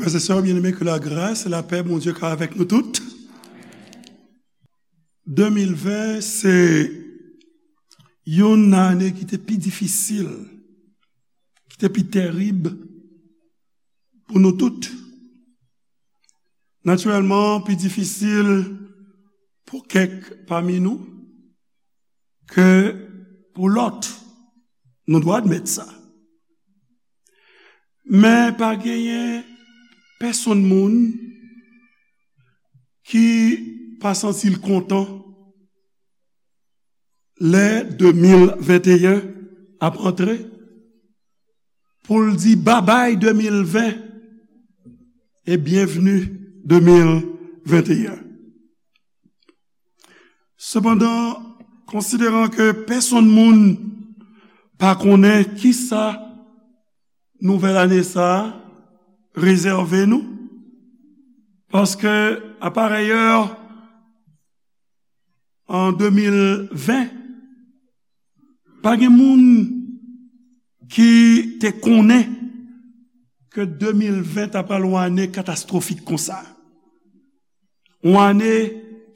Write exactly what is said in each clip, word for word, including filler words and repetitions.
Frères et sœurs bien-aimés, que la grâce et la paix Bondye ka avèk nou tout. De mil ven se youn nan ane ki te pi difisil, ki te pi tèrib pou nou tout. Natirèlman, pi difisil pou kèk pami nou ke pou lòt. Nou dwe admèt sa. Men pa genyen pèsonn moun ki pa santi l kontan lè de mil venteyen ap antre, pou l di babay de mil ven e byenvni de mil venteyen. Sepandan, konsideran ke pèsonn moun pa konnen kisa nouvèl ane sa a rezève nou, paske, a parèyè, an de mil ven, pa gen moun ki te konnen ke de mil ven ta pral yon ane katastwofik konsa. Yon ane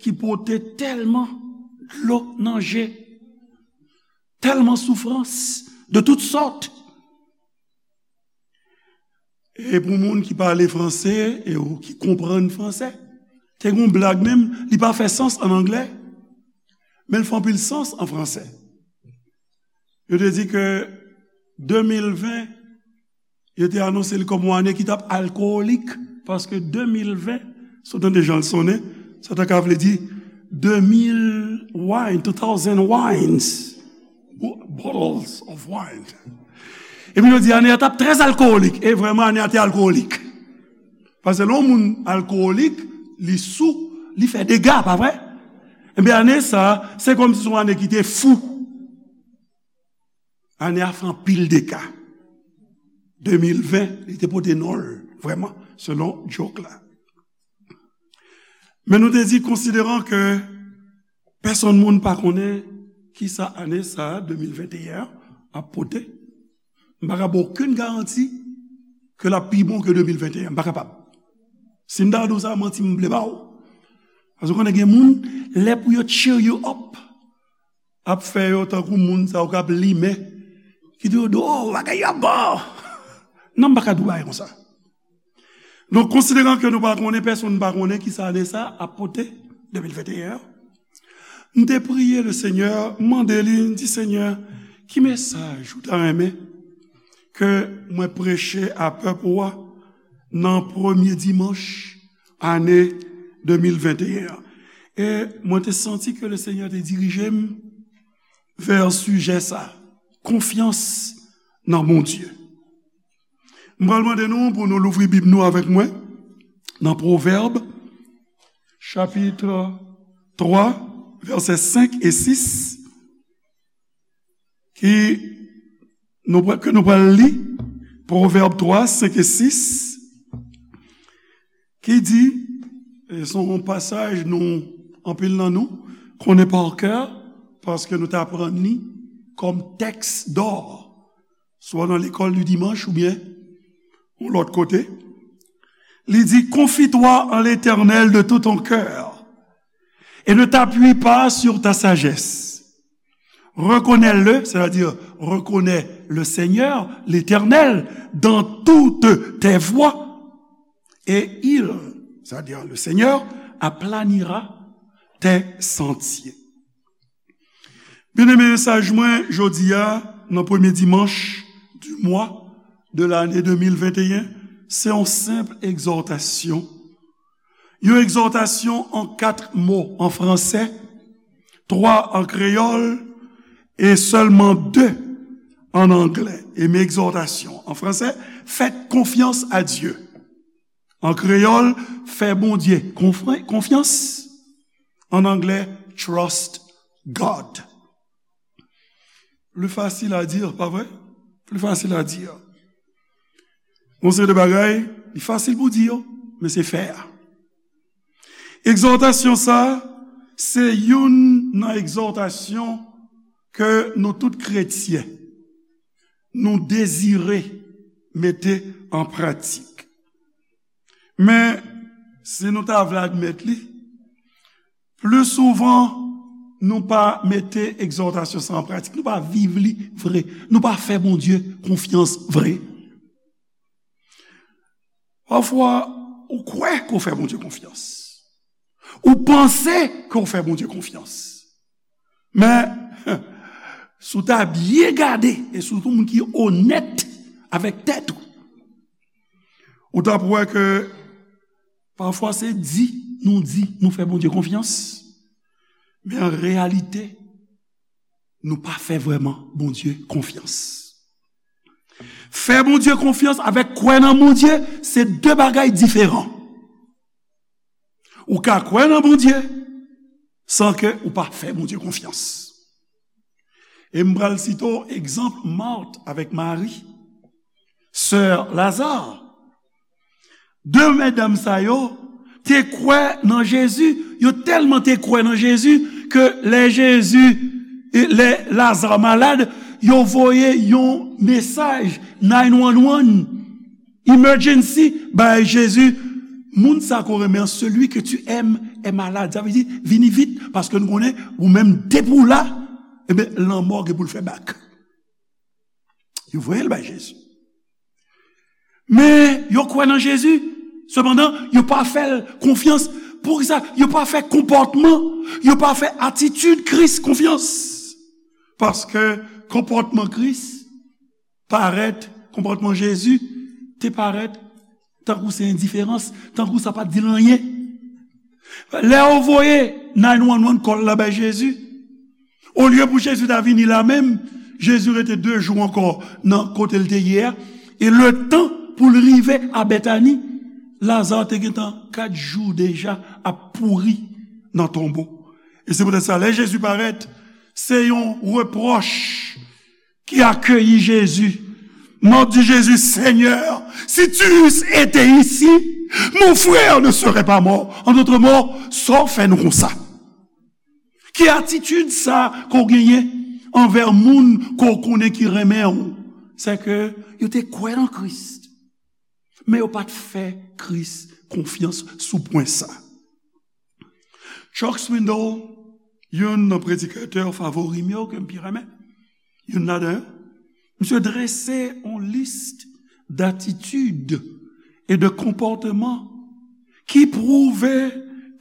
ki pote tèlman dlo nan je, tèlman soufrans de tout sòt. E pou moun ki pale franse e ou ki konprann franse, te gen yon blag menm, li pa fè sans an anglè, men l fè anpil sans an franse. Yo te di ke de mil ven, yo te anonse li kòm yon ane ki t ap alkowolik, paske de mil ven, si w tande jan l sonnen, sa ta ka vle di de mil wine, two thousand wines, bottles of wine. Epi yo di ane a t ap trè alkowolik, e vrèman ane a te alkowolik. Paske lè yon moun alkowolik, li sou, li fè dega, pa vre? Ebyen, ane sa, se kòmsi se yon ane ki te fou. Ane a fè anpil dega. De mil ven, li te pote non l, vrèman, selon djok la. Men nou te di, konsideran ke pèsonn moun pa konnen kisa ane sa a, de mil venteyen an, ap pote, m pa ka ba w okenn garanti ke l ap pi bon ke de mil venteyen an. M pa kapab. Si m ta di w sa, manti m vle ba w. Paske w konnen gen moun, lè pou yo cheer you up, ap fè yo tankou moun sa yo k ap limen, ki di yo, "Oh, bagay yo ap bon." Non, m pa ka di w bagay konsa. Donk, konsideran ke nou pa konnen, pèsonn pa konnen kisa ane sa ap pote, de mil venteyen an, m te priye Lesenyè, m mande li, m di, "Senyè, ki mesaj ou ta renmen ke mwen preche a pèp ou a nan premye dimanch ane de mil venteyen an?" E mwen te santi ke Lesenyè te dirije m vè sijè sa, konfyans nan Bondye. M pral mande nou pou nou louvri Bib nou avèk mwen nan Pwovèb, chapit twa, vèsè senk e sis, ki nou pral, ke nou pral li, Pwovèb twa, senk e sis, ki di, e se yon pasaj nou, anpil nan nou, konnen pa kè, paske nou te aprann li kòm tèks dò, swa nan lekòl di dimanch oubyen yon lòt kote. Li di, "Confie-toi en l'Éternel de tout ton cœur et ne t'appuie pas sur ta sagesse. Reconnais-le, c'est-à-dire reconnais le Seigneur, l'Éternel, dans toutes tes voies, et il, c'est-à-dire le Seigneur, aplanira tes sentiers." Byeneme, mesaj mwen jodi a, nan premye dimanch di mwa de lane de mil venteyen, se yon senp egzòtasyon. Yon egzòtasyon an kat mo an fransè, twa an kreyòl e sèlman de an anglè. E men egzòtasyon an fransè, faites confiance à Dieu. An kreyòl, fè Bondye konfran-, konfyans. An anglè, trust God. Plus facile à dire, pa vre? Plus facile à dire. Yon seri de bagay, li fasil pou di yo, men se fè a. Egzòtasyon sa, se youn nan egzòtasyon ke nou tout kretyen, nou dezire mete an pratik. Men, si nou ta vle admèt li, pli souvan, nou pa mete egzòtasyon sa an pratik. Nou pa viv li vre. Nou pa fè Bondye konfyans vre. Pafwa, ou kwè ke w fè Bondye konfyans. Ou panse ke w fè Bondye konfyans. Men, si w ta byen gade, e sitou moun ki onèt avèk tèt ou, ou t ap wè ke pafwa se di nou di nou fè Bondye konfyans, men an reyalite, nou pa fè vrèman Bondye konfyans. Fè Bondye konfyans avèk kwè nan Bondye, se de bagay diferan. Ou ka kwè nan Bondye san ke ou pa fè Bondye konfyans. E m pral site w egzanp Mat avèk Mari, sè Laza. De medam sa yo te kwè nan Jezi, yo tèlman te kwè nan Jezi ke lè Jezi, lè Laza malad, yo voye yon mesaj nine one one, emergency, bay Jezi, moun sa ke w renmen an, celui que tu aimes est malade. Sa vle di, vini vit, paske nou konnen, ou menm depi w la, ebyen, lanmò gen pou l fè bak. Yo voye l bay Jezi. Men, yo kwè nan Jezi, sepandan, yo pa fè l konfyans. Poukisa? Yo pa fè konpòtman, yo pa fè atitid Kris konfyans. Paske konpòtman Kris parèt, konpòtman Jezi te parèt tankou se endiferans, tankou sa pa t di l anyen. Lè yo voye nine one one call la bay Jezi, olye pou Jezi ta vini la menm, Jezi rete de jou ankò nan kote l te ye a, e letan pou l rive a Bètani, Laza te gentan kat jou deja ap pouri nan tonbo. E se poutèt sa, lè Jezi parèt, se yon repwòch ki akeyi Jezi. Mat di Jezi, Seigneur, si tu eusses été ici, mon frère ne serait pas mort. En d'autres mots, sa w fè nou konsa? Ki atitid sa ke w genyen anvè moun ke w konnen ki renmen w? Se ke yo te kwè nan Kris, men yo pa t fè Kris konfyans sou pwen sa. Chuck Swindoll, youn nan predikatè favori m yo ke m pi renmen, youn ladan yo, misye drese yon lis datitid e de konpòtman ki pwouve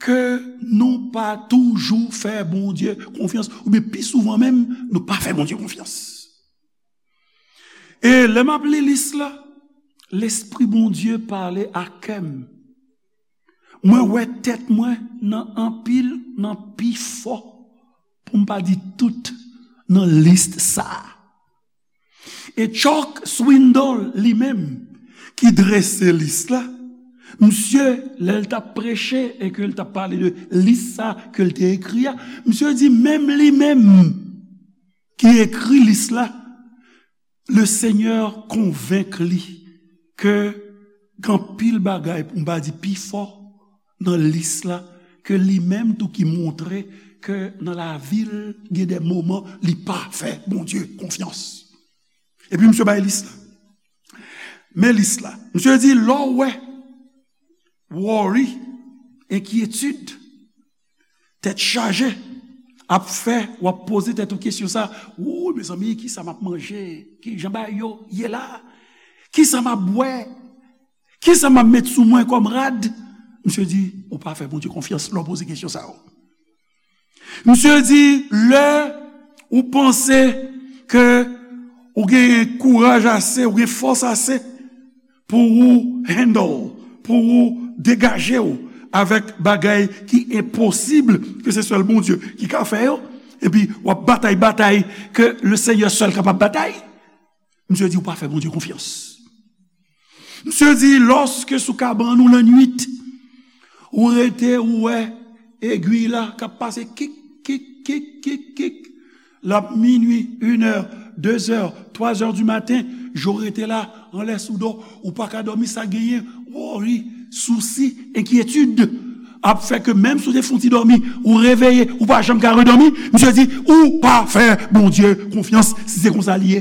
ke nou pa toujou fè Bondye konfyans, oubyen pi souvan menm, nou pa fè Bondye konfyans. E lè m ap li lis la, Lespri Bondye pale a kè m. Mwen wè tèt mwen nan anpil, nan pifò, pou m pa di tout, nan lis sa a. E Chuck Swindoll li menm, ki drese lis la, misye, lè l t ap preche e ke l t ap pale de lis sa ke l te ekri a, misye di menm li menm ki ekri lis la, Lesenyè konvenk li ke gen anpil bagay, pou m pa di pifò, nan lis la, ke li menm tou ki montre ke nan lavi l, gen de moman li pa fè Bondye konfyans. Epi misye bay lis la. Men lis la. Misye di, lè w wè worry, enkyetid, tèt chaje, ap fè w ap poze tèt ou kesyon sa, ou, mezanmi, kisa m ap manje? Kijan bagay yo ye la? Kisa m ap bwè? Kisa m ap met sou mwen kòm rad? Misye di, ou pa fè Bondye konfyans lè w poze kesyon sa yo. Misye di, lè ou panse ke ou gen kouraj ase, ou gen fòs ase pou ou handle, pou ou degaje w avèk bagay ki enposib, ke se sèl Bondye ki ka fè yo, epi w ap batay batay ke Lesenyè sèl kapab batay, misye di ou pa fè Bondye konfyans. Misye di, lòske sou kabann ou lannwit, ou rete, ou wè egwi la k ap pase kik, kik, kik, kik, kik. L ap minui, inè, dezè, twazè di maten, je w rete la, anlè sou do, ou pa ka dòmi, sa genyen, worry, sousi, enkyetid, ap fè ke menm si w te fè yon ti dòmi, ou reveye, ou pa janm ka redòmi, misye di, ou pa fè Bondye konfyans, si se konsa l ye.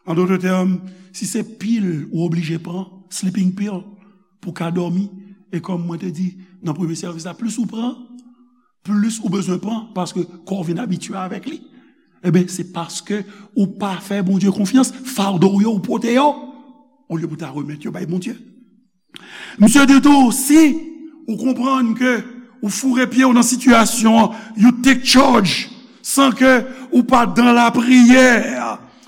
An dòt tèm, si se pil ou oblije pran, sleeping pill, pou w ka dòmi. E kòm mwen te di nan premye sèvis la, plis ou pran, plis ou bezwen pran, paske kò w vin abitye avèk li. Ebyen, se paske ou pa fè Bondye konfyans, fado w yo ou pote yo, olye pou w ta remèt yo bay Bondye. Misye di tou, si ou konprann ke ou foure pye w nan sitiyasyon an, you take charge, san ke ou pa dan lapriyè,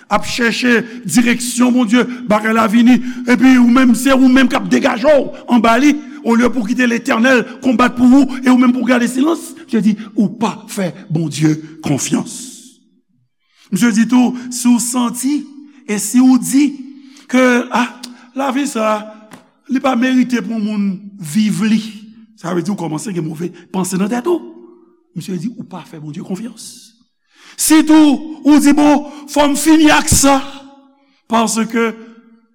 ap chèche direksyon Bondye, bagay la vini, epi ou menm, se ou menm k ap degaje w anba li, olye pou kite Letènèl konbat pou ou, e ou menm pou gade silans, misye di, ou pa fè Bondye konfyans. Misye di tou, si w santi e si w di ke, ah, lavi sa, li pa merite pou moun viv li, sa vle di ou kòmanse gen move panse nan tèt ou. Misye di, ou pa fè Bondye konfyans. Sitou, ou di, bon, fò m fini ak sa, paske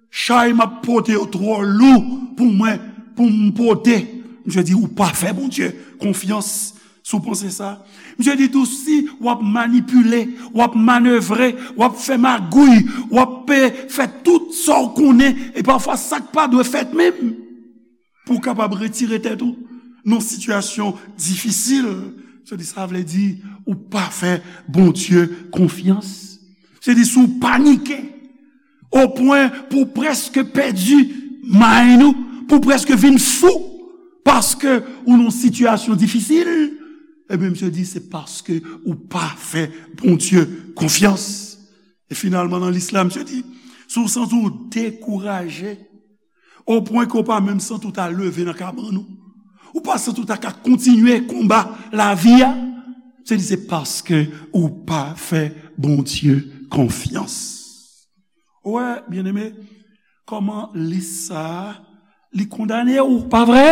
chay m ap pote yo twò lou pou mwen, pou m pote. Misye di, ou pa fè Bondye konfyans. Si w panse sa, misye di tou, si w ap manipile, w ap manevre, w ap fè magouy, w ap, eh, fè tout sa w konnen, e pafwa sa k pa dwe fèt menm, pou w kapab retire tèt ou nan sitiyasyon difisil, misye di, sa vle di ou pa fè Bondye konfyans. Misye di, si w panike, o pwen pou w prèske pèdi mind ou, pou w prèske vin fou, paske ou nan yon sitiyasyon difisil, ebyen, misye di, se paske ou pa fè Bondye konfyans. E finalman, nan lis la, misye di, si w santi w dekouraje, o pwen ke w pa menm santi w ta leve nan kabann ou, ou pa santi w ta ka kontinye konba lavi a, misye di, se paske ou pa fè Bondye konfyans. Ou wè, byeneme, kòman lis sa a, li kondane w, pa vre?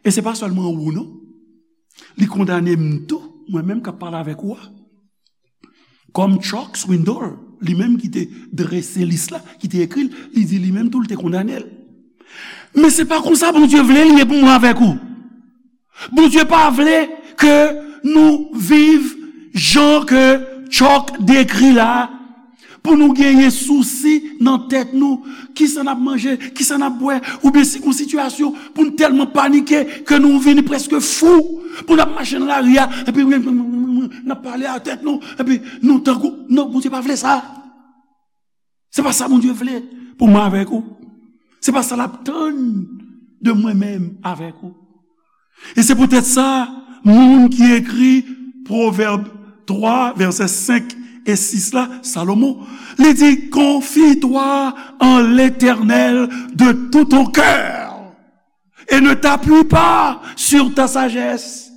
E se pa sèlman ou, non. Li kondane m tou, mwen menm k ap pale avèk ou a. Kòm Chuck Swindoll, li menm ki te drese lis la, ki te ekri l, li di li menm tou, li te kondane l. Men se pa konsa Bondye vle li ye pou mwen avèk ou. Bondye pa vle ke nou viv jan ke Chuck dekri la, pou nou genyen sousi nan tèt nou, kisa n ap manje, kisa n ap bwè, oubyen si gon sitiyasyon pou n tèlman panike ke nou vini prèske fou, pou n ap mache nan lari a, epi n ap pale a tèt nou, epi nou tankou, non, Bondye pa vle sa. Se pa sa Bondye vle pou mwen avèk ou. Se pa sa l ap tann de mwen menm avèk ou. E se poutèt sa, moun ki ekri Pwovèb twa, vèsè senk e sis la, Salomon, li di, confie-toi en l'Éternel de tout ton cœur et ne t'appuie pas sur ta sagesse.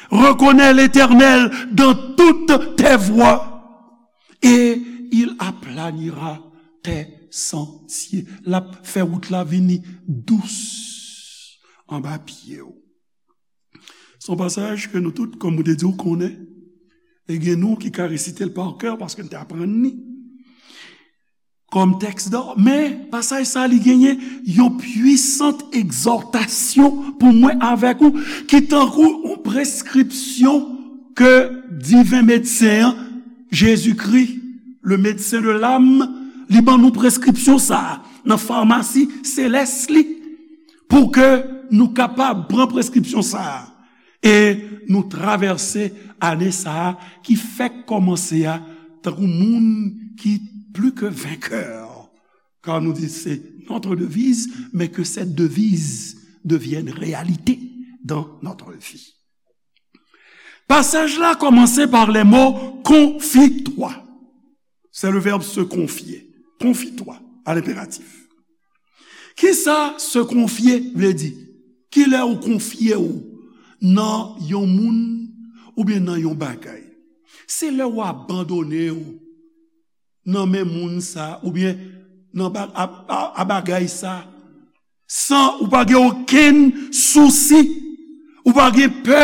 Reconnais l'Éternel dans toutes tes voies et il aplanira tes sentiers. L ap fè wout la vini dous anba pye w. Se yon pasaj ke nou tout, kòm mwen te di w, konnen. E gen nou ki ka resite l pa kè paske n te aprann li kòm tèks dò. Men, pasaj sa a, li genyen yon pwisant egzòtasyon pou mwen avèk ou, ki tankou yon preskripsyon ke diven medsen an, Jezikri, le médecin de l'âme, li ban nou preskripsyon sa a nan famasi selès li, pou ke nou kapab pran preskripsyon sa a e nou travèse ane sa a ki fèk kòmanse a tankou moun ki pli ke venkè. Kar nou di se notre devise, mais que cette devise devienne réalité dans notre vie. Pasaj la kòmanse pa lè mo confie-toi. C'est le verbe se confier. Confie-toi à l'impératif. Kisa se konfye vle di? Kilè ou konfye w nan yon moun oubyen nan yon bagay? Se lè ou abandone w nan men moun sa oubyen nan ba-, a, a, a bagay sa, san ou pa gen okenn sousi, ou pa gen pè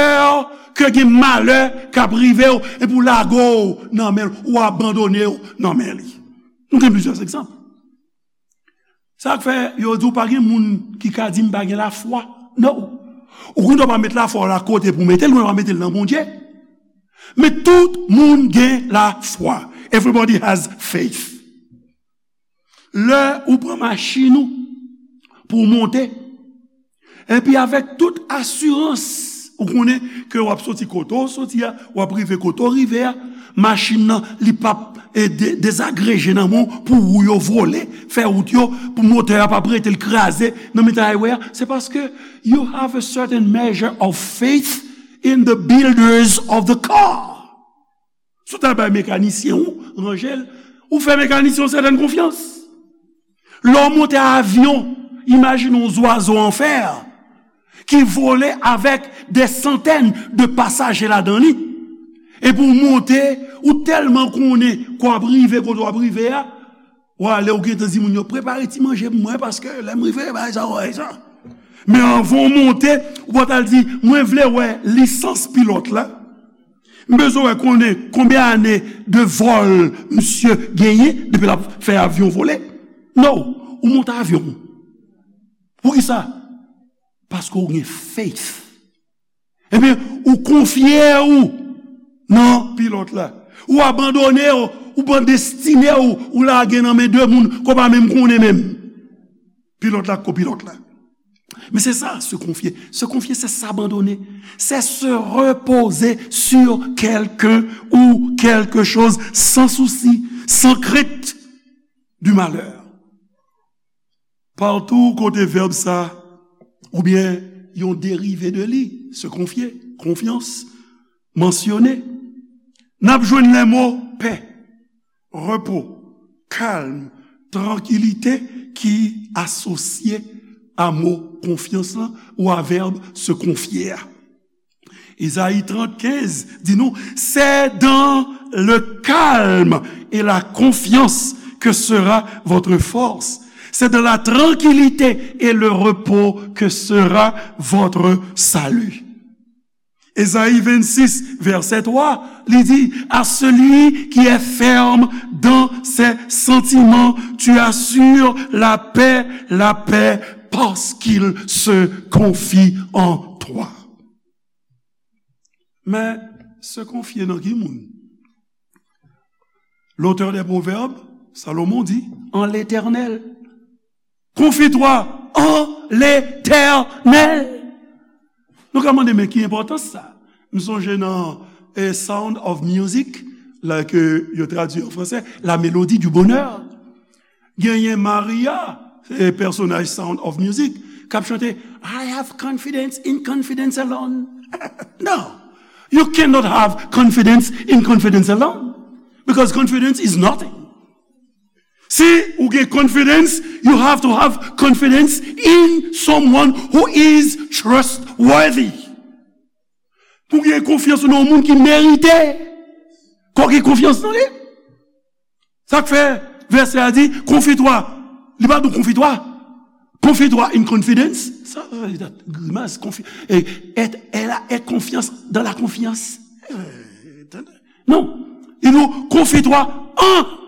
ke gen malè k ap rive w, epi w lage w nan men l, ou abandone w nan men li. Nou gen plizyè egzanp. Sa k fè yo di w pa gen moun ki ka di m pa gen lafwa. Non. Ou konn w pa met lafwa w la kote pou w mete l, ou pa mete l nan Bondye. Men tout moun gen lafwa. Everybody has faith. Lè ou pran machin ou pou w monte, Epi avèk tout asirans, ou konnen ke w ap soti kote w soti a, w ap rive kote w rive a, machin nan, li p ap e, de- dezagreje nan men w pou wou yo vole, fè wout yo, pou motè a p ap rete l kraze nan mitan highway a. Se paske you have a certain measure of faith in the builders of the car. Si w ta bay mekanisyen ou ranje l, ou fè mekanisyen yon sètèn konfyans. Lè w monte avyon, imajine yon zwazo an fè ki vole avèk de santèn de pasaje ladan li. Epi w monte, ou tèlman konnen ke w ap rive kote w ap rive a, w ale, ou gentan di moun yo, "Prepare ti manje pou mwen, paske lè m rive, bagay sa, bagay sa." Men anvan w monte, ou pral di, "Mwen vle wè lisans pilòt la. M bezwen wè konnen konbyen ane de vòl misye genyen depi l ap fè avyon vole." No, ou monte avyon. Poukisa? Paske w gen faith. Ebyen, ou konfye ou nan pilòt la. Ou abandone w, ou pran destine w, ou lage nan men de moun ke w pa menm konnen menm. Pilòt la, kopilòt la. Men se sa, se konfye. Se konfye, se s'abandonner. C'est se reposer sur quelqu'un ou quelque chose sans souci, sans crainte du malheur. Patou kote vèb sa, oubyen yon derive de li, se konfye, konfyans, mansyone, n ap jwenn lè mo pè, repo, kalm, trankilite ki asosye a mo konfyans lan ou a vèb se konfye a. Ezayi trant kenz di nou, c'est dans le calme et la confiance que sera votre force. C'est dans la tranquillité et le repos que sera votre salut. Ezayi vennsis, vèsè twa, li di, à celui qui est ferme dans ses sentiments, tu assures la paix, la paix, parce qu'il se confie en toi. Men, se konfye nan ki moun? L'auteur des Proverbes, Salomon di, en l'Éternel. Confie-toi en l'Éternel. Nou ka mande, men ki enpòtans sa? M sonje nan eh, Sound of Music, la ke yo tradui an fransè, La Mélodie du Bonheur. Genyen Maria, eh, pèsonaj Sound of Music, k ap chante, "I have confidence in confidence alone." No, you cannot have confidence in confidence alone, because confidence is nothing. Si ou gen confidence, you have to have confidence in someone who is trustworthy. Pou gen konfyans ou nan yon moun ki merite ke w gen konfyans nan li. Sa k fè vèsè a di, confie-toi. Li pa di w confie-toi. Confie-toi in confidence. Sa, sa, sa, grimas, confi, et, et, elle a, et confiance dans la confiance. Eh, tande. Non. Li di w, confie-toi en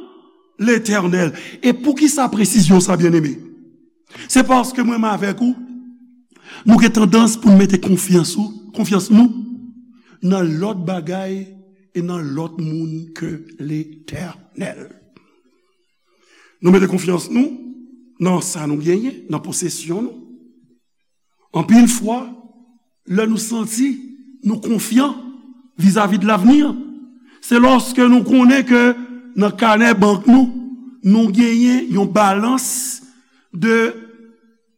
l'Éternel. E poukisa presizyon sa, byeneme? Se paske mwen menm avèk ou, nou gen tandans pou n mete konfyans ou, konfyans nou nan lòt bagay e nan lòt moun ke Letènèl. Nou mete konfyans nou nan sa nou genyen, nan posesyon nou. Anpil fwa, lè nou santi nou konfyan vizavi de lavni, se lòske nou konnen ke nan kanè bank nou, nou genyen yon balans de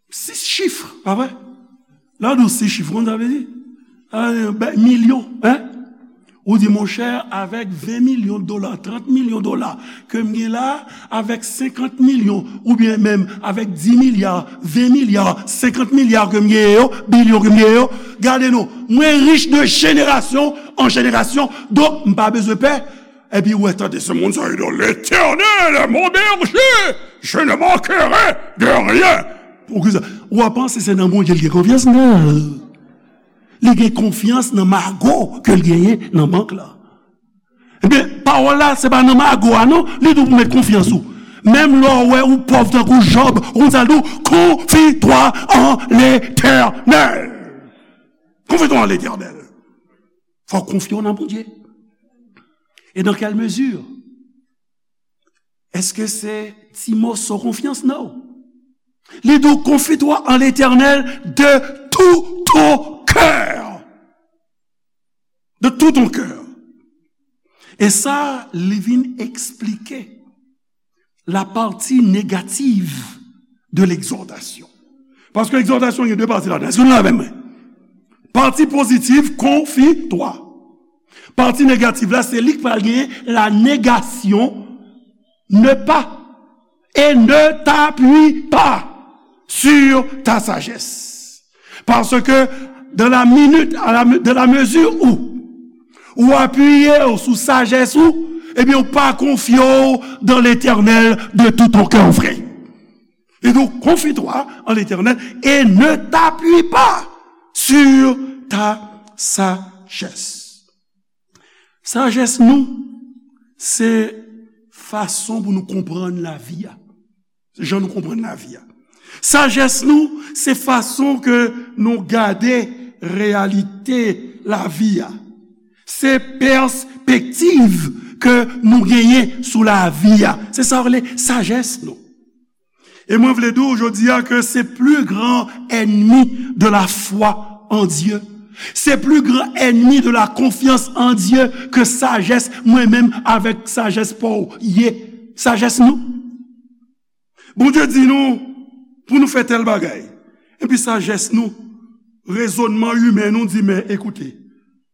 sis chif, pa vre? Lè w di sis chif, ou konn sa vle di? Ah, ben, milyon, hein? Ou di, monchè, avèk ven milyon dola, trant milyon dola ke m gen la, avèk senkant milyon, oubyen menm avèk di milya, ven milya, senkant milya ke m genyen yo, bilyon ke m genyen yo, gade non, mwen rich de jenerasyon an jenerasyon, donk m pa bezwen pè. Epi ou wè, tande se moun sa yo di, L'Éternel est mon berger, je ne manquerai de rien. Poukisa? Ou a panse se nan Bondye l gen konfyans? Non. Li gen konfyans nan mago ke l genyen nan bank la. Ebyen, pawòl la, se pa nan mago a non, li di w pou met konfyans ou. Menm lè w wè ou pòv tankou Jòb, ou konn sa l di w, confie-toi en l'Éternel. Confie-toi en l'Éternel. Fò w konfye w nan Bondye. Et dans quelle mesure? Èske se ti moso konfyans? Non. Li di w, confie-toi en l'Éternel de tout ton cœur. De tout ton cœur. E sa, li vin eksplike la partie négative de l'exhortation. Paske egzòtasyon gen de pati ladan. Èske nou la avè mwen? Pati pozitif, confie-toi. Pati negatif la, se li k pral genyen la négation, ne pas, et ne t'appuie pas sur ta sagesse. Paske dans la minute, à la, dans la mesure où ou apiye w sou sajès ou, ebyen, ou pa konfye w dans l'Éternel de tout ton cœur, frè. Et donc, confie-toi en l'Éternel et ne t'appuie pas sur ta sagesse. Sajès nou, se fason pou nou konprann lavi a. Se jan nou konprann lavi a. Sajès nou, se fason ke nou gade reyalite lavi a. Se pèspektiv ke nou genyen sou lavi a. Se sa yo rele sajès nou. E mwen vle di w jodi a ke se pli gran ènmi de la foi en Dieu. Se pli gran ènmi de la confiance en Dieu ke sajès mwen menm avèk sajès pa w ye. Sajès nou. Bondye di nou pou nou fè tèl bagay. Epi sajès nou, rezònman imen nou di, men ekoute,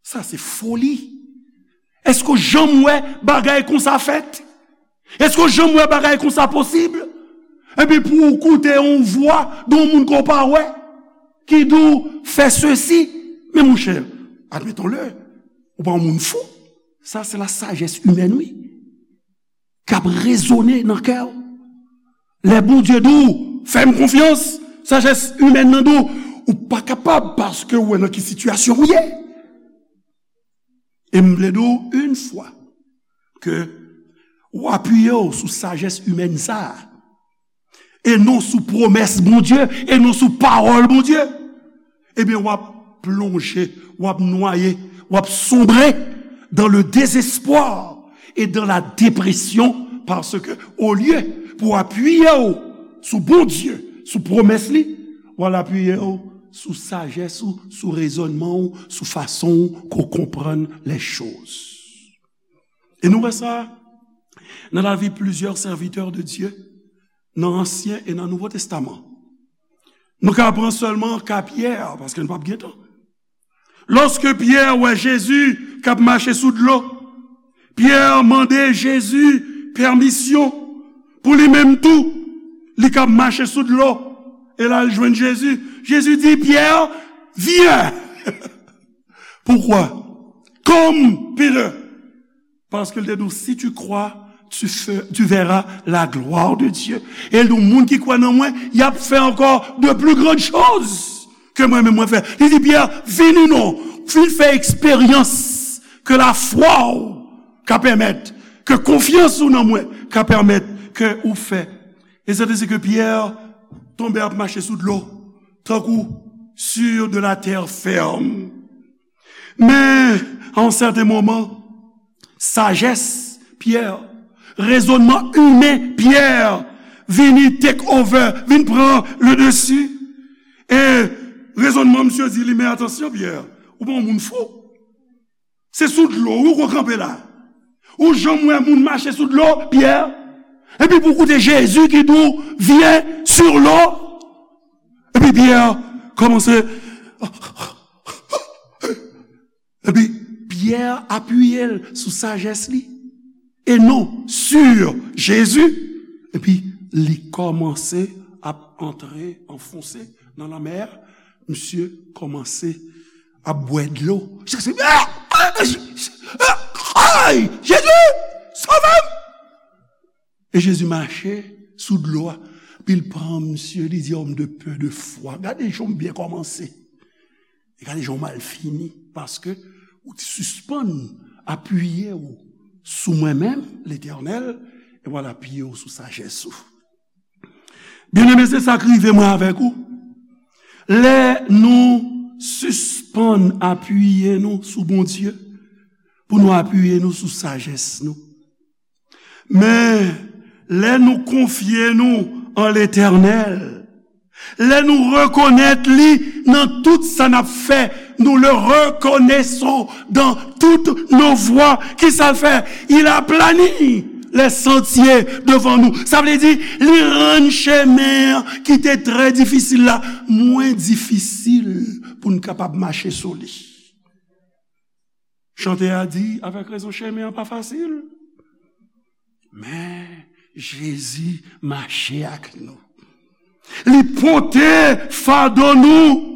sa se foli. Èske w janm wè bagay konsa fèt? Èske w janm wè bagay konsa posib? Epi pou w koute yon vwa de yon moun ke w pa wè, ki di w fè sesi, men monchè, admettons-le, ou pa yon moun fou. Sa se la sajès imèn, wi. K ap rezone nan kè w. Lè Bondye di w, fè m konfyans, sajès imèn nan di w, ou pa kapab paske w wè nan ki sitiyasyon w ye. E m vle di w yon fwa ke w apiye w sou sajès imèn sa a, e non sou pwomès Bondye, e non sou pawòl Bondye, ebyen, w ap plonje, w ap nwaye, w ap sonbre dans le désespoir et dans la dépression, paske olye pou w apiye w sou Bondye, sou pwomès li, w al apiye w sou sajès ou, sou rezònman w, sou fason w ke w konprann les choses. E nou wè sa nan lavi plizyè sèvitè de Dye, nan Ansyen e nan Nouvo Testaman. Nou ka pran sèlman ka Pyè, paske nou p ap gen tan. Lòske Pyè wè Jezi k ap mache sou dlo, Pyè mande Jezi pèmisyon pou li menm tou, li k ap mache sou dlo. E la, l jwenn Jezi. Jezi di, Pyè, vyen! Pourquoi? Comme Peter. Paske l te di w, si tu crois, tu, fe- tu verras la gloire de Dieu. E l di w, moun ki kwè nan mwen, y ap fè ankò de plus grandes choses ke mwen menm mwen fè. Li di, Pyè, vini non, vin fè eksperyans ke lafwa w ka pèmèt, ke konfyans ou nan mwen ka pèmèt ke ou fè. E se te si ke Pyè tonbe ap mache sou dlo, tankou sur de la terre ferme. Men, a yon sèten moman, sajès Pyè, rezònman imen Pyè vini take over, vin pran le dessus. E rezònman misye di li, men atansyon, Pyè, ou pa yon moun fou. Se sou dlo, wi, ou ko kanpe la. Ou janm wè moun mache sou dlo, Pyè? Epi pou koute Jezi ki di w, vyen sur l'eau. Epi Pyè kòmanse. Epi Pyè apiye l sou sajès li. E non sur Jezi. Epi li kòmanse ap antre, anfonse nan lanmè a. Misye kòmanse ap bwè dlo. Jezi, ah! Ay! Jezi! Sove m! E Jezi mache sou dlo a. Epi l pran misye, li di, homme de peu de foi. Gade jan w byen kòmanse. E gade jan w mal fini. Paske ou te sispann apiye w sou mwen menm, Letènèl, e w al apiye w sou sajès ou. Byeneme, se sa k rive mwen avèk ou. Lè nou sispann apiye nou sou Bondye, pou nou apiye nou sou sajès nou. Men, lè nou konfye nou an Letènèl, lè nou rekonèt li Dans tout ça n ap fè, nous le reconnaissons dans toutes nos voies. Kisa l fè? Il aplanit les sentiers devant nous. Sa vle di, li rann chemen an ki te trè difisil la mwen difisil pou n kapab mache sou li. Chantè a di, avèk rezon, chemen an pa fasil. Men Jezi mache ak nou. Li pote fado nou.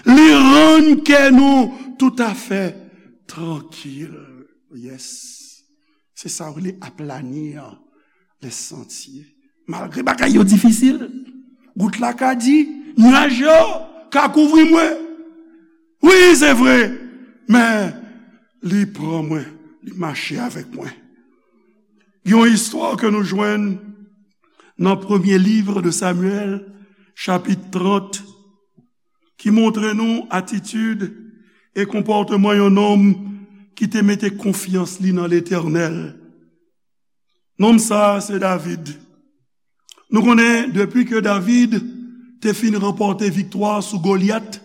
Li rann kè nou toutafè trankil. Yes. Se sa w rele aplani an, les sentiers. Malgre bagay yo difisil, gout la ka di, nyaj yo ka kouvri mwen. Wi, se vre, men li pran mwen, li mache avèk mwen. Gen yon istwa ke nou jwenn nan premye liv de Samyèl, chapit trant, ki montre nou atitid e konpòteman yon nonm ki te mete konfyans li nan Letènèl. Nonm sa a se David. Nou konnen, depi ke David te fin ranpòte viktwa sou Golyat,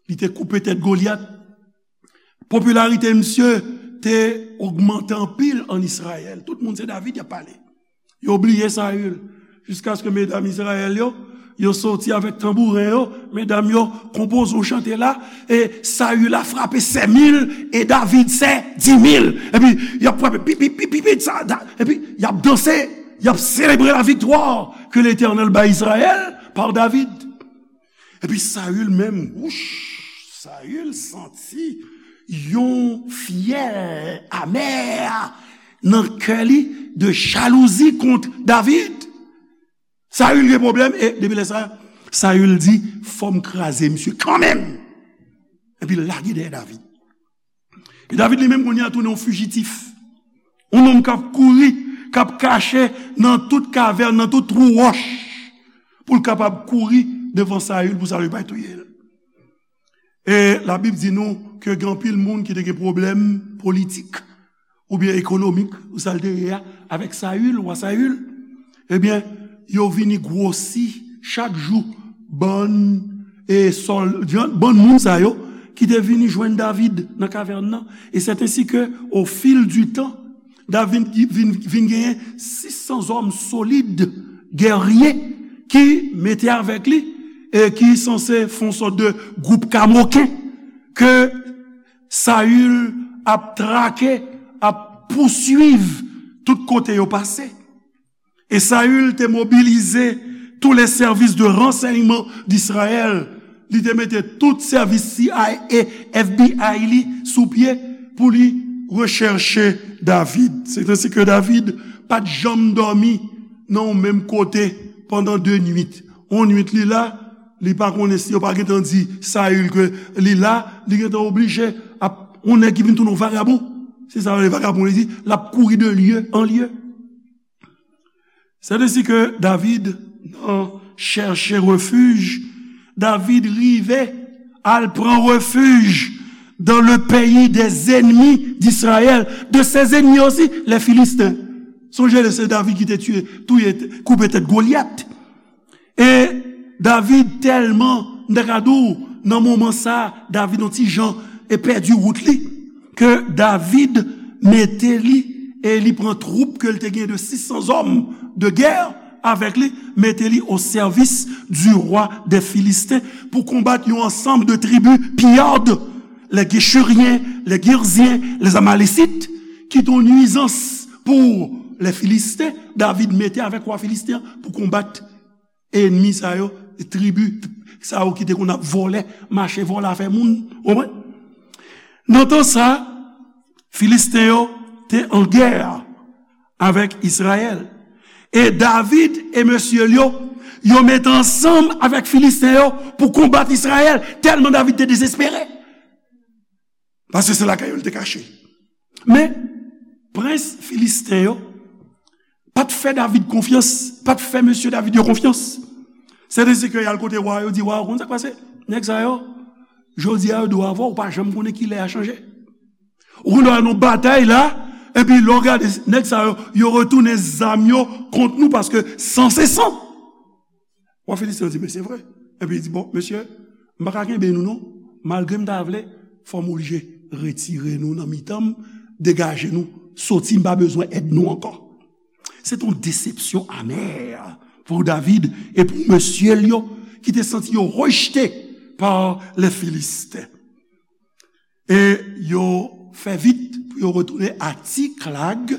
li te koupe tèt Golyat, popilarite misye te ogmante anpil ann Izrayèl. Tout moun se David y ap pale. Yo bliye Sayil. Jiskaske medam Izrayèl yo, yo soti avèk tanbouren yo, medam yo konpoze yon chante la, e Sayil a frape sèt mil, e David sèt di mil. Epi, y ap frape, pi, pi, pi, pi, pi, sa, da, epi, y ap danse, y ap selebre la victoire que l'Éternel bay Izrayèl par David. Epi Sayil menm, wouch, Sayil santi yon fyèl amè nan kè li de jalouzi kont David. Sayil gen pwoblèm, e depi lè sa, Sayil di, fò m kraze misye kanmenm. Epi l lage dèyè David. E David li menm kounye a tounen yon fijitif. Yon nonm k ap kouri, k ap kache nan tout kavèn, nan tout twou wòch, pou l kapab kouri devan Sayil, pou Sayil pa touye l. E Labib di nou ke gen anpil moun ki te gen pwoblèm politik oubyen ekonomik, ou sa l te ye a, avèk Sayil, wa Sayil. Ebyen, yo vini gwosi chak jou bann, e sòl-, bann moun sa yo ki te vini jwenn David nan kavèn nan. E c'est ainsi que, au fil du temps, David vin, vin genyen sis san zòm solid, gèrye, ki mete avèk li, e ki sanse fè yon sòt de gwoup kamoken ke Sayil ap trake, ap pouswiv tout kote yo pase. E Sayil te mobilize tous les services de renseignement d'Israël. Li te mete tout sèvis C I A, F B I li sou pye pou li rechèche David. C'est ainsi que David pa t janm dòmi nan yon menm kote pandan de nuit. Yon nuit li la, li pa konnen si yo pa gentan di Sayil ke li la, li gentan oblije ap yon nèg ki vin tounen yon vagabon. Se sa yo rele vagabon, li di, l ap kouri de lye an lye. C'est ainsi que David, nan chèche refij, David rive al pran refij dans le pays des ennemis d'Israël, de ses ennemis aussi, les Philistins. Sonje, se David ki te tiye, touye, koupe tèt Golyat. E David tèlman, m ta ka di w, nan moman sa, David yon ti jan e pèdi wout li, ke David mete li, e li pran twoup ke l te gen de sis san zòm de gè avèk li, mete li au service du roi des Philistins pou konbat yon ansanm de tribi piyad, les Guéchuriens, les Guirziens, les Amalécites, ki te yon nwizans pou les Philistins. David mete avèk wa Filisten an pou konbat enmi sa yo, tribi sa yo ki te konn ap vòlè, mache vòlè afè moun, ou konprann? Nan tan sa, Filisten yo te an gè avèk Izrayèl. E David e mesye l yo, yo mete ansanm avèk Filisten yo pou konbat Izrayèl, tèlman David te dezespere. Paske se lakay yo l te kache. Men, prens Filisten yo pa t fè David konfyans, pa t fè mesye David yo konfyans. Sèten se ke y al kote wa, yo di, wa, ou konn sa k pase? Nèg sa yo, jodi a yo dwe avè w, ou pa janm konnen kilè a chanje. Ou konn wè nan batay la, epi lè w gade nèg sa yo, yo retounen zam yo kont nou paske san se san. Wa Filisten an di, men se vre. Epi li di, bon, mesye, M pa ka kenbe nou non. Malgre m ta vle, fò m oblije retire nou nan mitan m, degaje nou, soti, m pa bezwen èd nou ankò. Se t yon desepsyon amè pou David e pou mesye l yo ki te santi yo rejte pa lè Filisten. E yo fè vit pou yo retounen a Tiklag,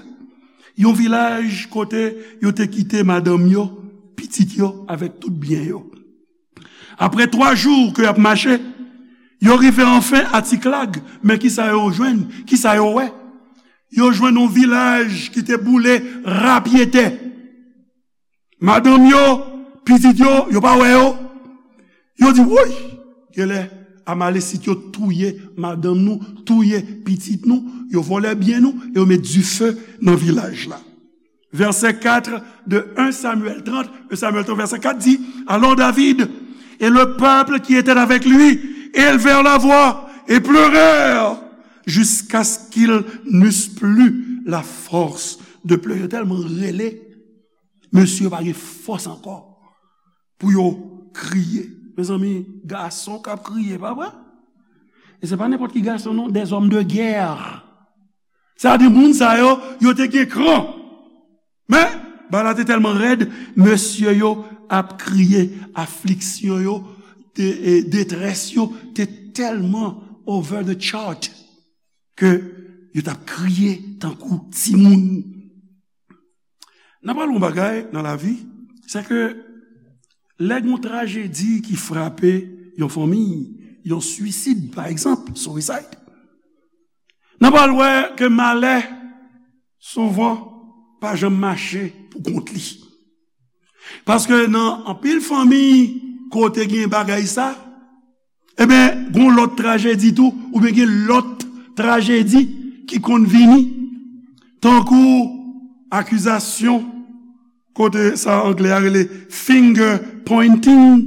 yon vilaj kote yo te kite madanm yo, pitit yo avèk tout byen yo. Apre twa jou ke y ap mache, yo rive anfen a Tiklag, men kisa yo jwenn? Kisa yo wè? Yo jwenn yon vilaj ki te boule rapyetè. Madanm yo, pitit yo, yo pa wè yo. Yo di, woy, genlè Amalesit yo touye madanm nou, touye pitit nou, yo vòlè byen nou, e yo met dife nan vilaj la. Verset quatre de un Samuel trente, un Samuel trente, verset quatre dit, alors David et le peuple qui était avec lui élevèrent la voix et pleurèrent jusqu'à ce qu'ils n'eussent plus la force de pleurer. Yo tèlman rele, mesye yo pa gen fòs ankò pou yo kriye. Mezanmi, gason k ap kriye, pa vre? E se pa nenpòt ki gason non, des hommes de guerre. Sa di moun sa yo, yo te gen kran. Men, bagay la te tèlman rèd, mesye yo ap kriye, afliksyon yo, de-, e, detrès yo te tèlman over the chart ke yo t ap kriye tankou timoun. N ap pale yon bagay nan lavi, se ke lè gen yon trajedi ki frape yon fanmi, yon swisid, pa egzanp, suicide, n ap al wè ke malè souvan pa janm mache pou kont li. Paske nan anpil fanmi kote gen bagay sa, ebyen, gen lòt trajedi tou, oubyen gen lòt trajedi ki konn vini, tankou akizasyon, kote sa anglè a rele finger pointing,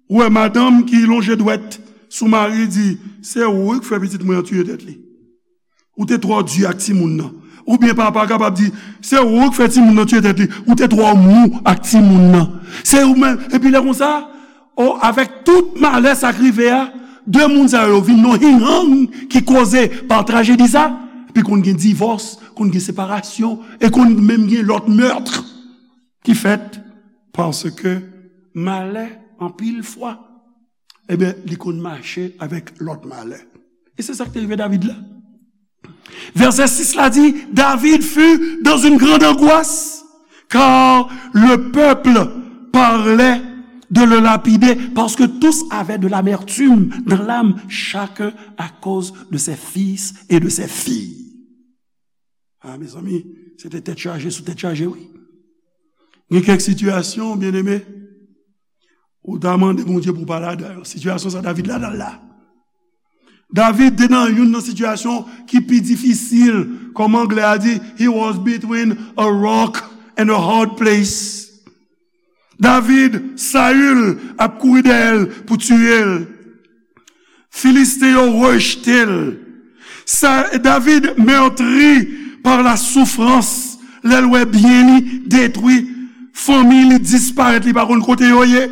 ou wè madanm ki lonje dwèt sou mari, di, se ou wi k fè pitit mwen an tiye tèt li. Ou te twò di ak timoun nan. Oubyen papa kapab di, se ou k fè timoun nan tiye tèt li. Ou te twò mou ak timoun nan. Se ou menm. Epi lè konsa, o, avèk tout malè sa k rive a, de moun sa yo vin nan hinghang ki koze pa trajedi sa, epi konn gen divòs, konn gen separasyon, e konn menm gen lòt meurtre ki fèt paske malè, anpil fwa, ebyen, li konn mache avèk lòt malè. E se sa k te rive David la. Verset six la di, David fut dans une grande angoisse, car le peuple parlait de le lapider, parce que tous avaient de l'amertume dans l'âme, chacun à cause de ses fils et de ses filles. Ah, mezanmi, se te tèt chaje sou tèt chaje, wi. Gen kèk sitiyasyon, byeneme, ou ta mande Bondye pou w pa ladan yo. Sitiyasyon sa David ladan l la. David te nan youn nan sitiyasyon ki pi difisil. Kòm anglè a di, he was between a rock and a hard place. David, Saül ap kouri dèyè l pou tiye l. Filisten yo rejte l. Sa, David meurtri par la souffrance, lè l wè byen li detwi, fanmi li disparèt, li pa konn kote yo ye.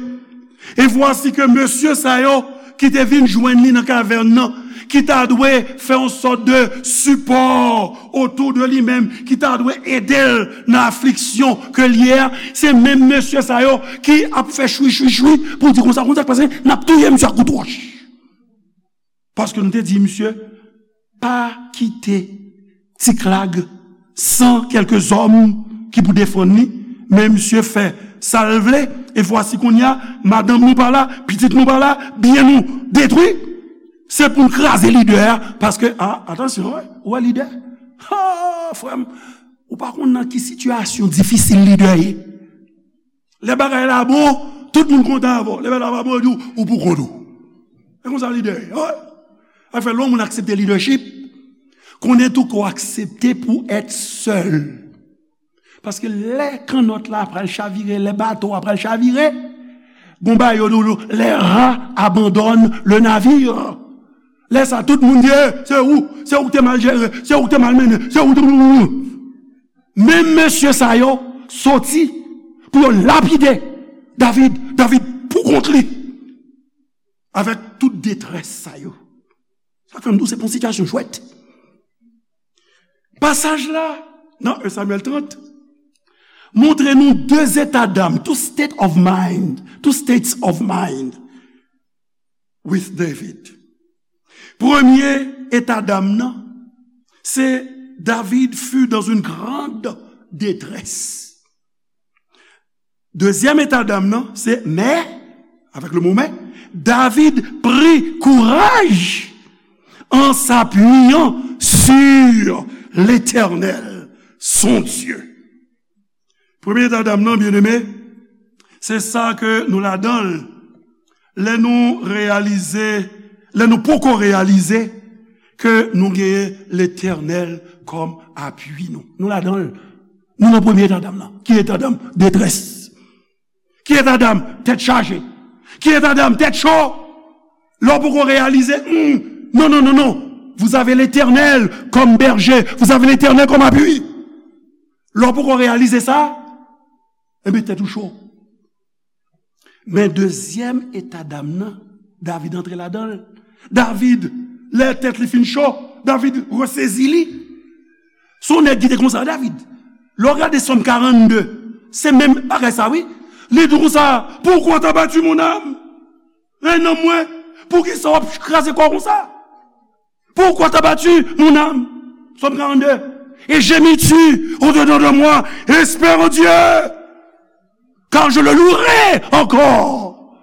E vwasi ke mesye sa yo ki te vin jwenn li nan kavèn nan, ki ta dwe fè yon sòt de sipò otou de li menm, ki ta dwe ede l nan afliksyon ke l ye a, se menm mesye sa yo ki ap fè chwi, chwi, chwi pou di konsa, konsa k pase, n ap touye misye ak kout wòch. Paske nou te di misye, pa kite Tiklag san kèlke zòm ki pou defann li, men misye fè sa l vle, e vwasi kounye a, madanm nou pa la, pitit nou pa la, byen nou detwi, se pou n kraze lidè a, paske, a, atansyon, wi, ou wè lidè, ha, frè m, ou pa konn nan ki sitiyasyon difisil lidè ye. Lè bagay la bon, tout moun kontan avè w. Lè bagay la pa bon, yo di w, ou pou kont ou. E konsa lidè ye, wi. Sa fè lè yon moun aksepte lidèchip, konnen tou ke w aksepte pou èt sèl. Paske lè kannòt la pral chavire, lè bato a pral chavire, gon bagay yo di w, les rats abandonnent le navire. Lè sa, tout moun di, eh, se ou, se ou ki te mal jere, se ou ki te mal mennen, se ou ki te... Menm mesye sa yo soti pou yo lapide David, David pou kont li. avèk tout detrès sa yo. Sa fè m di w se pa yon sitiyasyon jwèt. Pasaj la, nan en Samyèl trant, montre nou de eta dam, two state of mind, two states of mind with David. Premye eta dam nan, se David fut dans une grande détresse. Dezyèm eta dam nan, se mais, avec le mot mais, David prit courage en s'appuyant sur l'Éternel, son Dieu. Premye eta dam nan, byeneme, se sa ke nou ladan l. Lè nou reyalize, lè nou poko reyalize ke nou genyen Letènèl kòm apui nou. Nou ladan l. Nou nan premye eta dam nan. Ki eta dam? Detrès. Ki eta dam? Tèt chaje. Ki eta dam? Tèt cho. Lè w poko reyalize, hmm, non, non, non, non. Vous avez l'Éternel comme berger. Vous avez l'Éternel comme appui. Lè w poko reyalize sa, enben tèt ou cho. Men dezyèm eta dam nan, David antre ladan l. David, lè tèt li fin cho, David resezi li. Se yon nèg ki te konsa, David. Lè w gade Sòm karannde, se menm bagay sa, wi. Li di konsa, pourquoi t'as battu mon âme? Rèy nanm mwen, poukisa w ap kraze kò w konsa? Pourquoi t'as battu mon âme? Sòm karannde. Et gémis-tu au-dedans de moi, espère en Dieu, car je le louerai encore.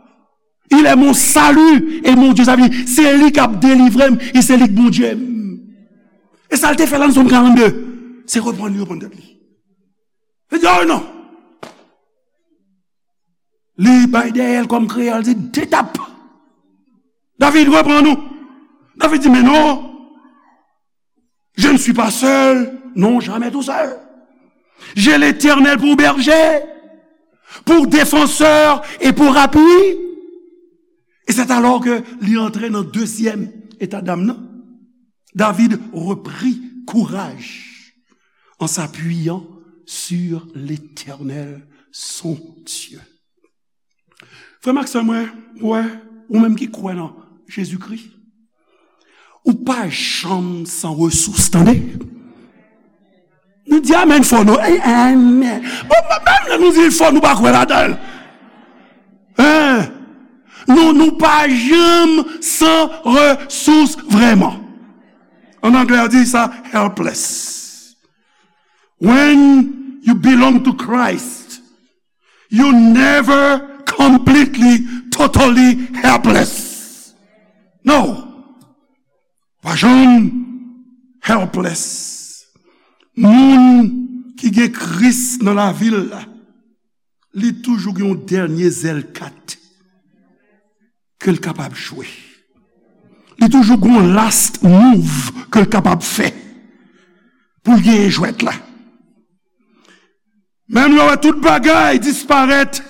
Il est mon salut et mon Dieu. Sa vle di, se li k ap delivre m, e se li k Bondye m. E sa l te fè la nan Sòm karannde, se reprann li, reprann tèt li. Li di, oh non. Li bay dèyè l kòm kreyòl di, de tap. David, reprann ou. David di, mais non, je ne suis pas seul. Non, jamais tout seul. J'ai l'Éternel pour berger, pour défenseur et pour appui. Et c'est alors que li antre nan dezyèm eta dam nan. David reprit courage en s'appuyant sur l'Éternel, son Dieu. Frè m ak sè mwen, ou wè, ou menm ki kwè nan Jezikri, ou pa janm san resous, tande. Nou di amèn fò, non? Ey, amèn. Bon, menm lè nou di l fò, nou pa kwè ladan l. Hein? Nou, nou pa janm san resous vrèman. An anglè, yo di sa helpless. When you belong to Christ, you never completely, totally helpless. No. Pa janm helpless. Moun ki gen Kris nan lavi l la, li toujou gen yon dènye zèl kat ke l kapab jwe. Li toujou gen yon last move ke l kapab fè pou l genyen jwèt la. Menm lè w wè tout bagay disparèt,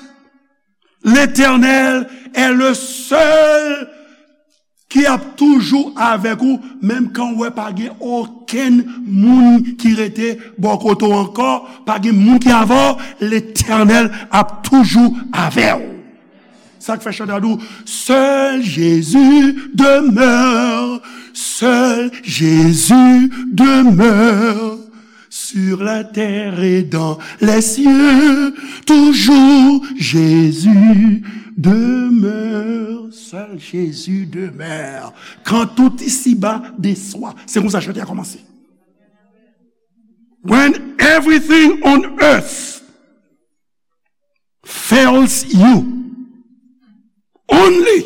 Letènèl est le seul ki ap toujou avèk ou, menm kan w wè pa gen okenn moun ki rete bò kote w ankò, pa gen moun ki avè w, Letènèl ap toujou avè w. Sa k fè chante a di w, seul Jésus demeure, seul Jésus demeure. Sur la terre et dans les cieux, toujours Jésus demeure. Seul Jésus demeure. Quand tout ici-bas déçoit. Se konsa chante a kòmanse. When everything on earth fails you, only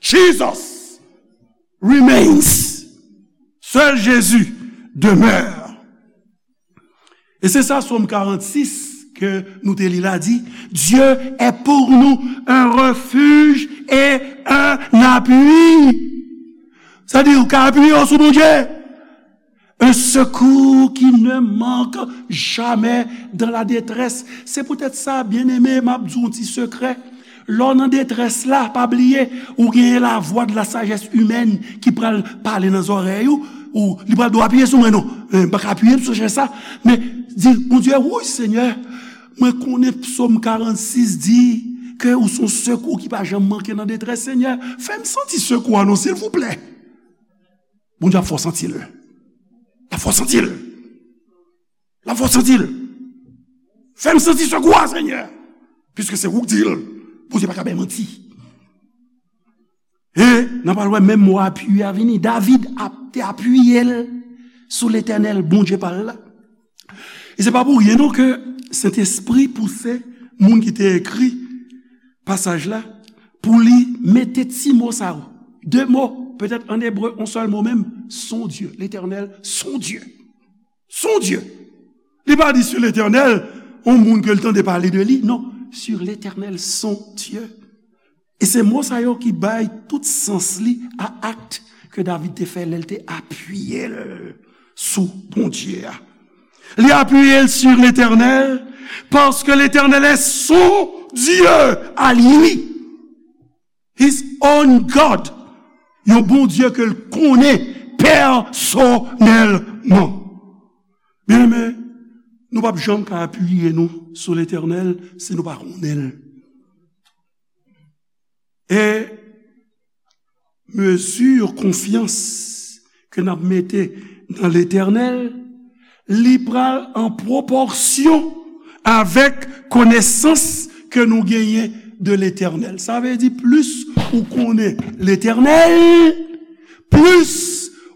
Jesus remains. Seul Jésus demeure. E se sa Sòm karannsis ke nou te li la di, Dieu est pour nous un refuge et un appui. Sa di ou ka apiye w sou Bondye. Un secours qui ne manque jamais dans la détresse. Se poutèt sa, byeneme, m ap di w yon ti sekrè. Lè w nan detrès la, pa bliye, ou genyen la voix de la sagesse humaine ki pral pale nan zòrèy ou, ou li pral di w apiye sou mwen non. Eh, m pa ka apiye sou chèz sa, men di, Bondye, wi, Senyè, mwen konnen Psaume quarante-six di, ke ou se yon sekou ki pa janm manke nan detrès, Senyè, fè m santi sekou a non, silvouplè. Bondye ap fè w santi l. L ap fè w santi l. L ap fè w santi l. Fè m santi sekou a, Senyè. Piske se ou k di l. Bondye pa ka bay manti. E n a pral wè menm mo apiye a vini. David ap, te apiye l sou Letènèl, Bondye pa l la. E se pa pou ryen non ke Sentespri pouse moun ki te ekri pasaj la pou li mete ti mo sa yo. De mo, petèt an ebre, yon sèl mo menm, son Dye, Letènèl, son Dye. Son Dye. Li pa di sur l'Éternel, yon moun ke l tande pale de li, non, sur l'Éternel, son Dye. E se mo sa yo ki bay tout sans li a akt ke David te fè lè l te apiye l sou Bondye a. Li apiye l sur l'Éternel, paske Letènèl est son Dieu à lui. His own God. Yon Bondye ke l konnen pèsonèlman. Byeneme, nou p ap janm ka apiye nou sou Letènèl si nou pa konnen l. E mezi konfyans ke n ap mete nan Letènèl, li pral an pwopòsyon avèk konesans ke nou genyen de Letènèl. Sa vle di, plis ou konnen Letènèl, plis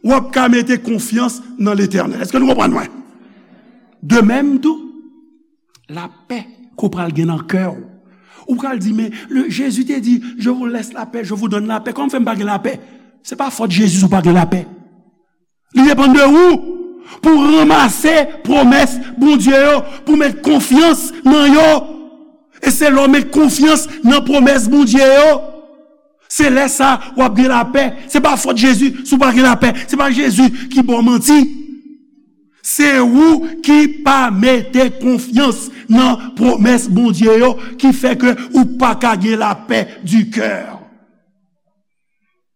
w ap ka mete konfyans nan Letènèl. Èske nou konprann mwen? De menm tou, lapè ke w pral gen nan kè w. Ou pral di, men, le, Jezi te di, je vous laisse la paix, je vous donne la paix. Kòman fè m pa gen lapè? Se pa fòt Jezi si w pa gen lapè. Li depann de ou pou w ranmase pwomès Bondye yo, pou w met konfyans nan yo. E se lè w met konfyans nan pwomès Bondye yo, se lè sa w ap gen lapè. Se pa fòt Jezi si w pa gen lapè. Se pa Jezi ki ba w manti. Se ou ki pa mete konfyans nan pwomès Bondye yo ki fè ke ou pa ka gen lapè di kè.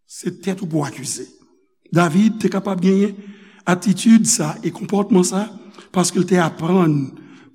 Se tèt ou pou w akize. David te kapab genyen atitid sa e konpòtman sa paske l te aprann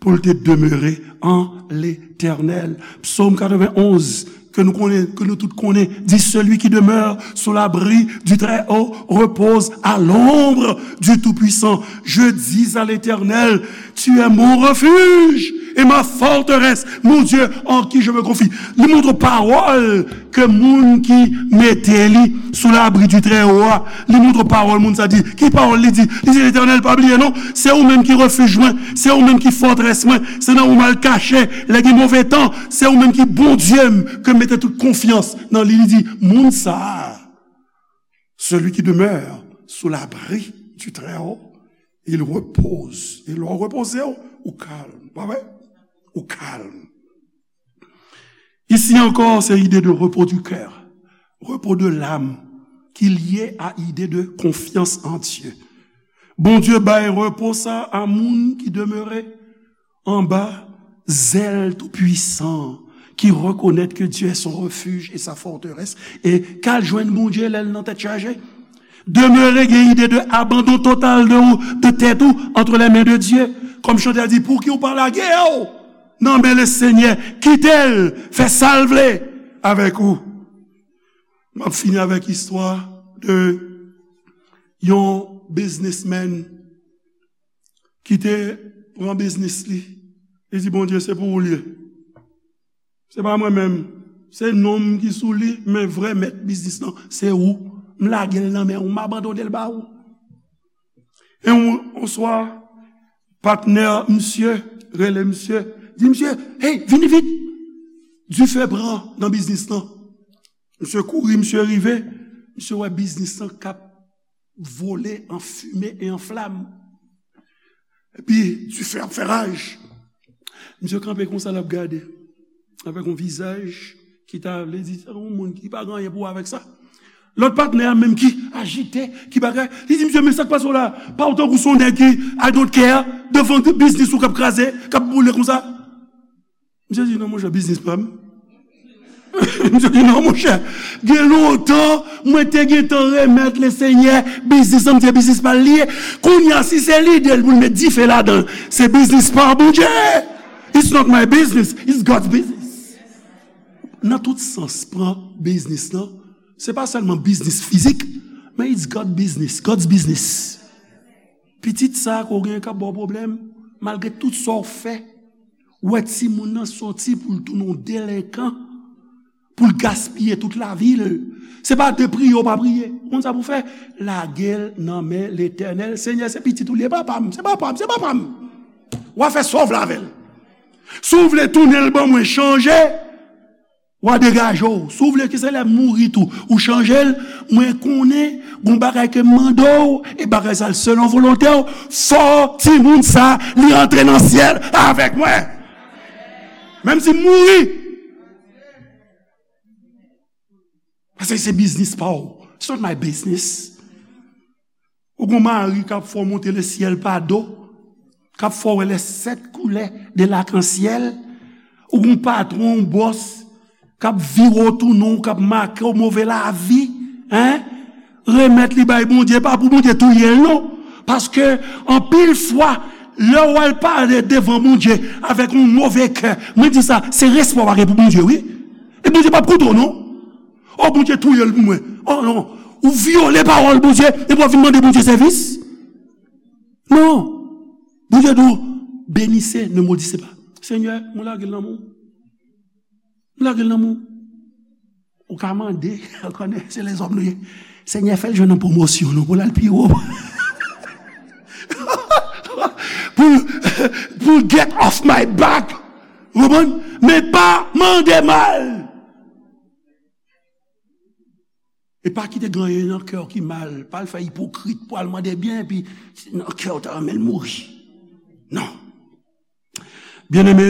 pou l te demere an Letènèl. Psaume quatre-vingt-onze, ke nou konnen, ke nou tout konnen, di, celui qui demeure sous l'abri du Très-Haut repose à l'ombre du Tout-Puissant. Je dis à l'Éternel, tu es mon refuge et ma forteresse, mon Dieu en qui je me confie. Li montre pawòl ke moun ki mete li sou labri di Trèwo a, li montre pawòl moun sa di. Ki pawòl li di? Li di, Letènèl, pa bliye non, se ou menm ki refij mwen, se ou menm ki fòtrès mwen, se nan ou m al kache lè gen move tan, se ou menm ki Bondye m, ke m mete tout konfyans nan li. Li di, moun sa a, celui qui demeure sous l'abri du Très-Haut, il repose. E lè w repoze w, ou kalm, pa vre? Ou kalm. Isi ankò, se ide de repos du cœur, repos de l'âme, ki lye a ide de konfyans an Dye. Bondye bay repo sa a moun ki demere anba zèl Toupwisan, ki rekonèt ke Dye est son refuge et sa forteresse, e k al jwenn Bondye lè l nan tèt chaje. Demere gen ide de abandon total de ou, de tèt ou, entre les mains de Dieu. Kòm chantè a di, pouki ou pa lage w nan men Lesenyè, kite l fè sa l vle avèk ou. M ap fini avèk istwa de yon biznismenn ki te pran biznis li. Li di, Bondye, se pou ou l ye. Se pa mwen menm. Se non m ki sou li, men vrè mèt biznis lan, se ou. M lage l nan men ou, m abandone l ba ou. E yon, yon swa, patnè misye rele misye, di misye, hey, vini vit! Dife pran nan biznis lan. Misye kouri, misye rive, misye wè biznis lan k ap vole an fimen e an flam. Epi, dife ap fè raj. Misye kanpe konsa, l ap gade. Avèk yon vizaj ki ta vle di, se yon moun ki pa gen anyen pou wè avèk sa. Lòt patnè a menm ki ajite, ki bagay, li di, misye, men sa k pase w la? Pa w tankou se yon nèg ki, I don't care, devan biznis ou k ap kraze, k ap boule konsa. Misye di, non, monchè, biznis pa m. Misye di, non, monchè, gen lontan, mwen te gentan remèt Lesenyè biznis lan, m di se biznis pa l li ye. Kounye a, si se lide l pou l met dife ladan l, se biznis pa Bondye. It's not my business, it's God's business. Ou Nan tout sans, pran biznis lan. Se pa sèlman biznis fizik, men it's God business, God's business. Pitit sa ke w gen k ap ba w pwoblèm, malgre tout sa w fè, ou wè timoun nan soti pou l tounen yon delenkan, pou l gaspiye tout lavi l. Se pa de priye w pa priye. Ou konn sa pou w fè? Lage l nan men Letènèl. Senyè, se pitit ou l ye, papa m, se papa m, se papa m. W a fè sa w vle avè l. Si w vle tounen l ban mwen, chanje, w a degaje w. Si w vle ke se lè m mouri tou, ou chanje l, mwen konnen gon bagay ke m mande w, e bagay sa l selon volonte w, fò timoun sa li antre nan syèl avèk mwen. Menm si m mouri. Paske se biznis pa w. It's not my business. Ou gon mari k ap fè w monte lesyèl pa do, k ap fè w wè les sept couleurs de l'arc-en-ciel. Ou gon patwon, yon bòs, k ap vire w tounen w, k ap make w move lavi, en? Remèt li bay Bondye, pa pou Bondye touye l non. Paske anpil fwa, lè w al pale devan Bondye avèk yon move kè, mwen di sa, se respè w pa gen pou Bondye, wi. E Bondye p ap koute w non. Oh, Bondye touye l pou mwen. Oh non, ou vyole pawòl Bondye, epi w ap vin mande Bondye sèvis? Non. Bondye di w, bénissez, ne maudissez pas. Senyè, mwen lage l nan men w. Mwen lage l nan men w. Ou ka mande, ou konnen, se lèzòm nou ye. Senyè, fè l jwenn yon pwomosyon, non, pou l al pi wo. Pou, pou get off my back. Ou konprann? Men pa mande mal. E pa kite gen anyen nan kè w ki mal, pa al fè ipokrit pou al mande byen, epi nan kè w ta renmen l mouri. Non. Byeneme,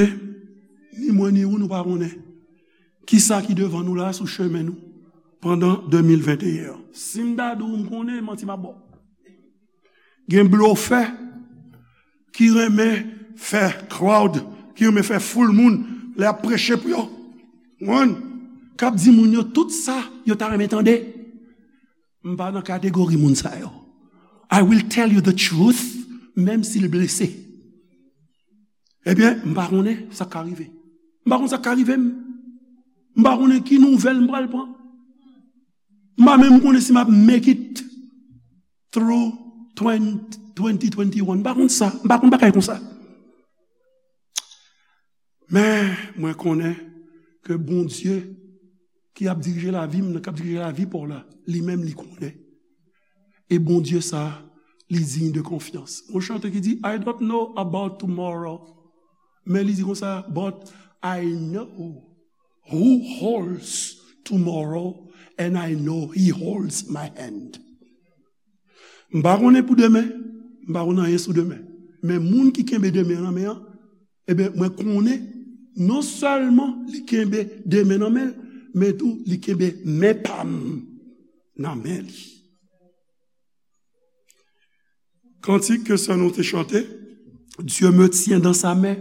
ni mwen ni ou, nou pa konnen kisa ki devan nou la sou chemen nou pandan de mil venteyen an. Si m ta di w m konnen, manti m ap ba w. Gen blofè ki renmen fè crowd, ki renmen fè foul moun lè y ap preche pou yo. Konprann? K ap di moun yo tout sa yo ta renmen tande. M pa nan kategori moun sa yo. I will tell you the truth, menm si l blese. Ebyen, m pa konnen sa k ka rive. M pa konn sa k ka rive m. M pa konnen ki nouvèl m pral pran. M pa menm konnen si m ap make it through twenty, twenty twenty-one. M pa konn sa. M pa konn bagay konsa. Men, mwen konnen ke Bondye ki ap dirije lavi m nan, k ap dirije lavi pa w la, li menm li konnen. E Bondye sa, li diy de konfyans. Yon chante ki di, I don't know about tomorrow. Men li di konsa, but I know who holds tomorrow and I know he holds my hand. M pa konnen pou demen, m pa konnen anyen sou demen. Men moun ki kenbe demen an nan men an, ebyen, mwen konnen, non sèlman li kenbe demen nan men l, men tou li kenbe men pa m nan men li. Kantik ke sè nou te chante, Dieu me tient dans sa main,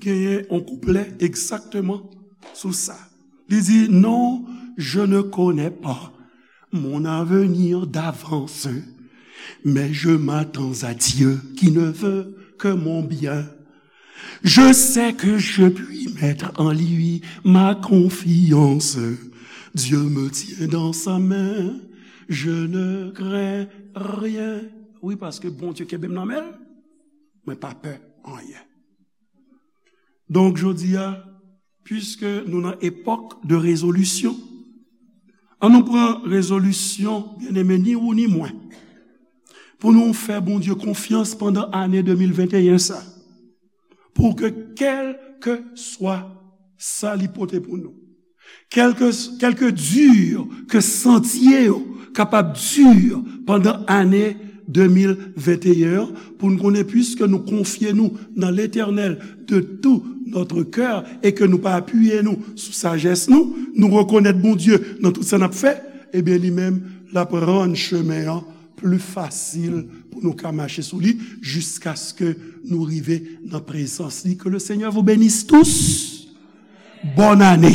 genyen yon kouplè egzakteman sou sa. Li di, non, je ne connais pas mon avenir d'avance, mais je m'attends à Dieu qui ne veut que mon bien. Je sais que je puis mettre en lui ma confiance. Dieu me tient dans sa main, je ne crains rien. Wi, paske Bondye kenbe m nan men l, mwen pa pè anyen. Donk, jodi a, piske nou nan epòk de rezolisyon, ann nou pran rezolisyon, byeneme, ni ou ni mwen, pou nou fè Bondye konfyans pandan ane de mil venteyen sa, pou ke kèlkeswa sa li pote pou nou, kèlke, kèlke di ke santye yo kapab di pandan ane de mil venteyen an, pou n konnen, piske nou konfye nou nan Letènèl de tout notre cœur e ke nou pa apiye nou sou sajès nou, nou rekonèt Bondye nan tout sa n ap fè, ebyen, li menm, l ap rann chemen an pli fasil pou nou ka mache sou li, jiskaske nou rive nan prezans li. Que le Seigneur vous bénisse tous. Bòn ane.